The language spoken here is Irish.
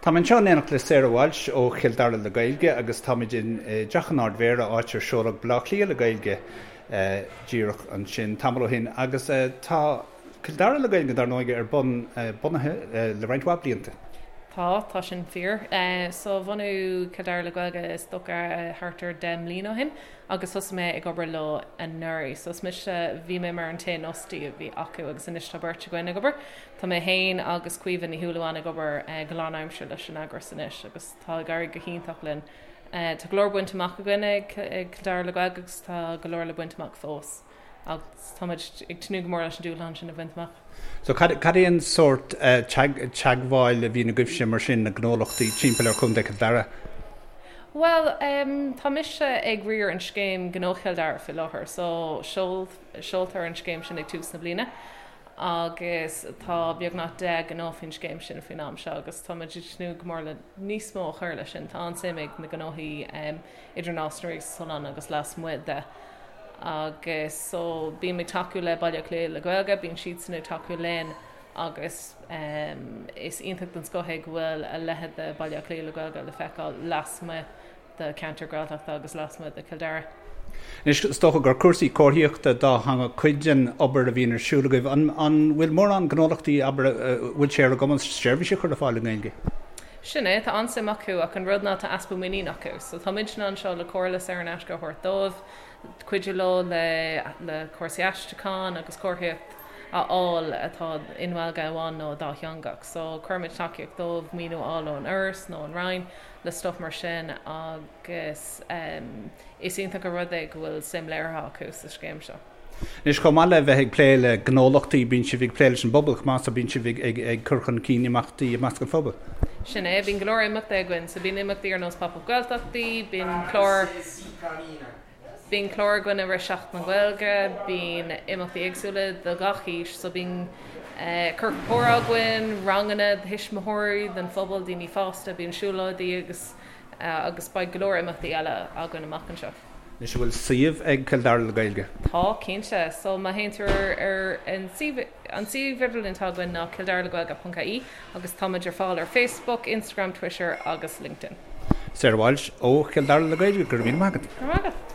Tá mé anseo in éineacht le Sarah Walsh ó Chill Dara le Gaeilge agus táimid i dTeach an Ardmhéara, áit ar seoladh Baile Átha Cliath le Gaeilge díreach ansin tamall ó shin. Agus tá Cill Dara le Gaeilge, dar ndóigh, ar bun, bunaithe le roinnt mhaith blianta. Tá, tá sin fíor. So bhunaigh Cill Dara le Gaeilge is dócha thart ar 10 mbliana ó shin agus thosaigh mé ag obair leo anuraidh. So is mise, bhí mé mar an t-aon fhostaí a bhí acu agus anois tá beirt againn ag obair. Tá mé féin agus Caoimhe Ní Shúilleabháin ag obair go lánaimseartha leis an eagras anois agus tá ag éirí go hiontach linn. Tá go leor bainte amach againn ag Cill Dara le Gaeilge agus tá go leor le baint amach fós agus táimid ag tnúth go mór leis an dúshlán sin a bhaint amach. So cad é an sórt teagmháil a bhíonn agaibhse mar sin le gnólachtaí timpeall ar Chontae Chill Dara? Bhuel, tá mise ag riar an scéim Gnó Chill Dara faoi láthair so seoltar an scéim sin ag tús na bliana. agus tá beagnach 10 ngnó faoin scéim sin faoin am seo agus tá muid ag tnúth go mór le níos mó a chur leis sin. Tá an-suim ag na gnóthaí idir Nás na Rí agus Oileán agus lasmuigh de agus so bím ag tacú le Baile Átha Cliath le Gaeilge, bíonn siadsan ag tacú linn agus is iontach den scoth é go bhfuil a leithéid de Baile Átha Cliath le Gaeilge le feiceáil lasmuigh de cheantar Gaeltachta agus lasmuigh de Chill Dara. Anois, is dócha gur cúrsaí comharthaíochta dátheangach cuid den obair a bhíonn ar siúl agaibh. An bhfuil mórán gnólachtaí, abair, a bhfuil sé ar a gcumas seirbhís a chur ar fáil i nGaeilge? Sin é, tá an-suim acu ach an rud ná tá easpa muinín acu. So tá muidne anseo le comhairle saor in aisce a thabhairt dóibh, cuidiú leo le le cúrsaí aistriúcháin agus comharthaíocht a fháil atá i nGaeilge amháin nó dátheangach. So cuirimid tacaíocht dóibh maoiniú a fháil ón Fhoras nó ón Roinn le stuff mar sin agus is iontach an rud é go bhfuil suim léirithe acu sa scéim seo. Anois, chomh maith le bheith ag plé le gnólachtaí, bíonn sibh ag plé leis an bpobal chomh maith, so bíonn sibh ag cur chun cinn imeachtaí i measc an phobail. Sin é, bíonn go leor imeachtaí againn, so bíonn imeachtaí ar nós Pop Up Gaeltachtaí, bíonn clár. Bíonn clár againn i rith Seachtain na Gaeilge, bíonn imeachtaí éagsúla do gach aois, so bíonn ciorcal comhrá againn, ranganna do thuismitheoirí, don phobal, daoine fásta, bíonn siúlóidí agus agus beidh go leor imeachtaí eile againn amach anseo. Anois, an bhfuil suíomh ag Cill Dara le Gaeilge? Tá, cinnte. So má théann tú ar ar an suíomh an suíomh idirlín atá againn ná kildaraleghaeilge.ie agus táimid ar fáil ar Facebook, Instagram, Twitter agus LinkedIn. Sarah Walsh ó Chill Dara le Gaeilge, go raibh míle maith agat. Go raibh maith agat.